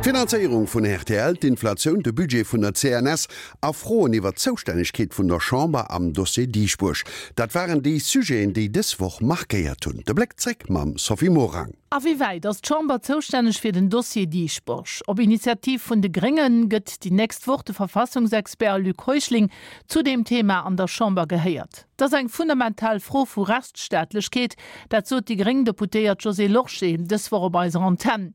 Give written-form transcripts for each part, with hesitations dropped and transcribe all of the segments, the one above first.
D'Finanzéierung vun rtl, d'Inflatioun, de Budget vun der CNS a Froen iwwer d'Zoustännegkeet vun der Chamber am Dossier Dieschbourg, dat waren déi Sujeten, déi dës Woch markéiert hunn. De Bléck zréck mam Sophie Morang. A wéi wäit ass d'Chamber zoustänneg fir den Dossier Dieschbourg? Op Initiativ vun de Grénge gëtt déi nächst Woch de Verfassungsexpert Luc Heuschling zu deem Thema an der Chamber gehéiert. Dat ass eng fundamental Fro vu Rechtsstaatlechkeet, dat sot déi gréng Deputéiert Josée Lorsché dës Woch op eiser Antenn.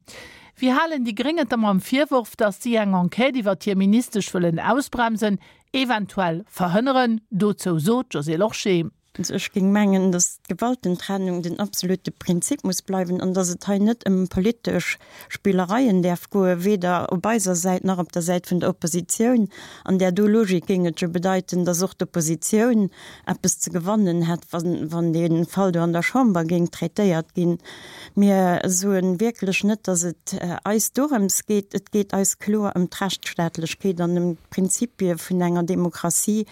Wéi halen déi Gréng et da mam Virworf, datt si eng Enquête iwwert hir Ministesch wëllen ausbremsen, eventuell verhënneren? Dozou sot d'Josée Lorsché. Also ech géing mengen, datt d'Gewaltentrennung den absolute Prinzip muss bleiwen an datt et hei net ëm politesch Spillereien däerf goen, weder op eiser Säit nach op der Säit vun der Oppositioun. An där do Logik géing et jo bedeiten, datt och d'Oppositioun eppes ze gewannen hätt, wann dee Fall do an der Chamber géing traitéiert ginn. Mir soe wierklech net, datt et eis dorëms geet. Et geet eis kloer ëm d'Rechtsstaatlechkeet an ëm d'Prinzipie vun enger Demokratie.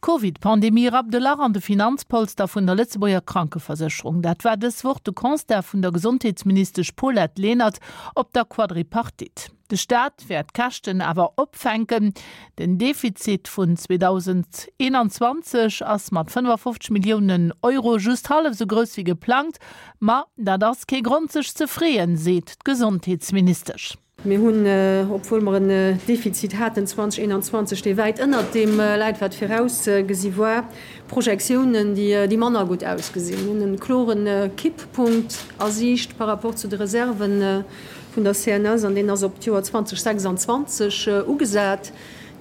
D'Covid-Pandemie rappt e Lach an de Finanzpolster vun der Lëtzebuerger Krankeversécherung. Dat war dës Woch de Constat vun der Gesondheetsministesch Paulette Lenert op der Quadripartite. De Staat wäert d'Käschten awer opfänken. Den Defizit vun 2021 ass mat 55 Milliounen Euro just hallef esou grouss wéi geplangt. Ma dat ass kee Grond sech ze freeën, seet d'Gesondheetsministesch. Mir hunn, obwuel mer en Defizit haten 2021, dee wäit ënnert deem läit, wat virausgesi war, Projektiounen, déi manner gutt ausgesinn. Mir hunn e klore Kipppunkt a Siicht par rapport zu de Reserven vun der CNS an deen ass op d'Joer 2026 ugesat.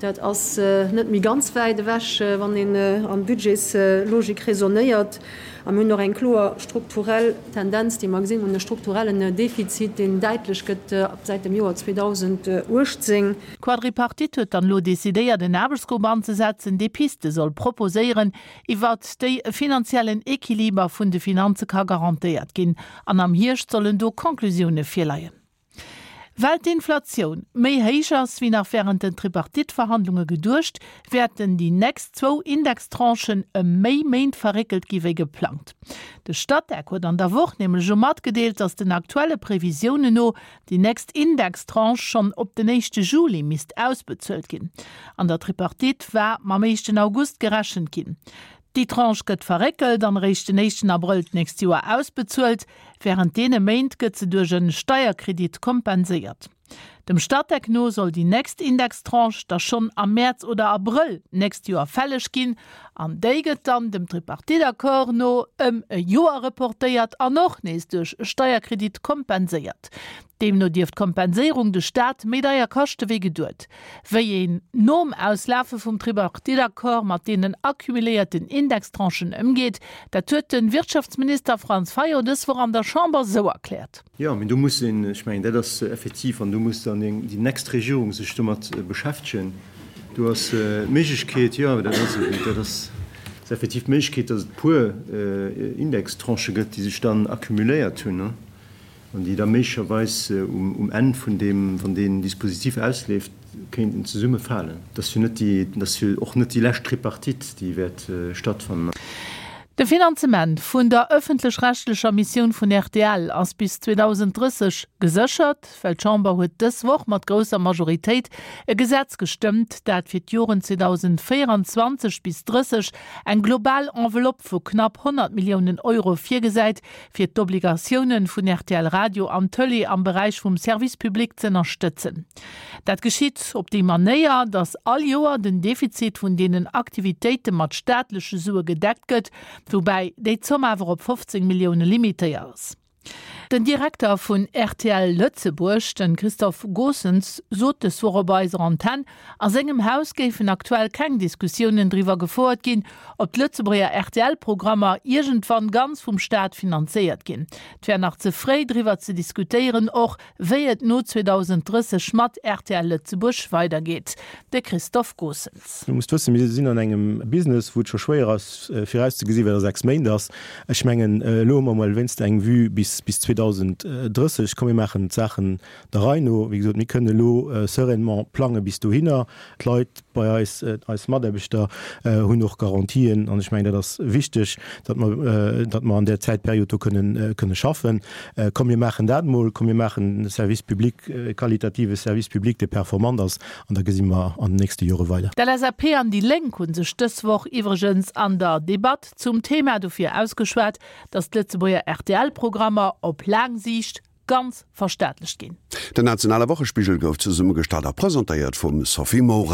Dat ass net méi ganz wäit ewech, wann een an Budgetslogik raisonnéiert. A mir hunn och eng kloer strukturell Tendenz, déi mer gesinn hunn, e strukturellen Defizit, deen däitlech gëtt säit dem Joer 2018. D'Quadripartite huet dann elo decidéiert, en Aarbechtsgrupp anzesetzen, dee Piste soll proposéieren, iwwert déi e finanziellen Equiliber vun de Finanze ka garantéiert ginn. An am Hierscht sollen do Conclusioune virleien. Well d'Inflatioun méi héich ass wéi nach wärend den Tripartite-Verhandlunge geduecht, wäerten déi nächst zwou Indextranchen ëm méi Méint verréckelt gi wéi geplangt. De Statec huet an der Woch nämlech elo matgedeelt, datt den aktuelle Previsiounen no déi nächst Indextranche schonn op den éischte Juli misst ausbezuelt ginn. An der Tripartite war mam éischten August gerechent ginn. Déi Tranche gëtt verréckelt an eréischt den éischten Abrëll d'nächst Joer ausbezuelt. Wärend deene Méint gëtt se duerch en Steierkredit kompenséiert. Dem Statec no soll déi nächst Indextranche da schonn am Mäerz oder Abrëll d'nächst Joer fälleg ginn an déi gëtt dann dem Tripartite-Accord no ëm e Joer reportéiert an och nees duerch e Steierkredit kompenséiert. Deemno dierft d'Kompenséierung de Staat méi deier kaschte wéi geduet. Wéi een nom Auslafe vum Tripartite-Accord mat deenen accumuléierten Indextranchen ëmgeet, dat huet de Wirtschaftsminister Franz Fayot dës Woch an der Chamber sou erkläert. Jo, mee do muss een, ech mengen, dat ass effektiv, an do muss dann déi nächst Regierung sech domat beschäftegen. Do ass d'Méiglechkeet, jo, dat ass esou, dat ass effektiv d'Méiglechkeet, datt et e puer Indextranchë gëtt, déi sech dann accumuléiert hunn. An déi da méiglecherweis um Enn vun deem, wann deen Dispositif ausleeft, kéinten zesummefalen. Dat ass jo net déi, dat ass jo och net déi lescht Tripartite, déi wäert stattfannen. De Finanzement vun der ëffentlech-rechtlecher Missioun vun rtl ass bis 2030 geséchert, well d'Chamber huet dës Woch mat grousser Majoritéit e Gesetz gestëmmt, dat fir d'Joren 2024 bis 30 eng global Enveloppe vu knapp 100 Milliounen Euro virgesäit, fir d'Obligatiounen vun rtl Radio an Tëlee am Beräich vum Service public z'ënnerstëtzen. Dat geschitt op déi Manéier, datt all Joer den Defizit vun deenen Aktivitéite mat staatleche Sue gedeckt gëtt, woubäi déi Zomm awer op 15 Millioune limitéiert ass. Den Direkter vun rtl Lëtzebuerg, de Christophe Goossens, sot dës Woch op eiser Antenn, A sengem Haus géifen aktuell keng Diskussiounen driwwer gefouert ginn, ob d'Lëtzebuerger RTL-Programmer iergendwann ganz vum Staat finanzéiert ginn. Et wär nach ze fréi driwwer ze diskutéieren, och wéi et no 2030 mat rtl Lëtzebuerg weidergeet. De Christophe Goossens. Du musst wëssen, mir sinn an engem Business, wou et scho schwéier ass virauszegesinn, wat a 6 Méint ass. Ech mengen, elo hu mer emol wéinst eng Vue bis bis 2030. 2030. Komm mir maachen d'Saachen der Rei no. Wéi gesot, mir kënnen elo sereinement plange bis dohinner. D'Leit bei eis, eis Mataarbechter hunn och Garantien an ech mengen, dat ass wichteg, datt mer, datt mer an där Zäitperiod do kënnen, kënne schaffen. Komm mir maachen dat emol, komm mir maachen e Service public, e qualitative Service public, dee performant ass an da gesi mer an den nächste Jore weider. D'LSAP an déi Lénk hu sech dës Woch iwwregens an der Debatt zum Thema dofir ausgeschwat, datt d'Lëtzebuerger RTL-Programmer op laang Siicht ganz verstaatlecht ginn. Den nationale Wochespigel gouf zesummegestallt a presentéiert vum Sophie Morang.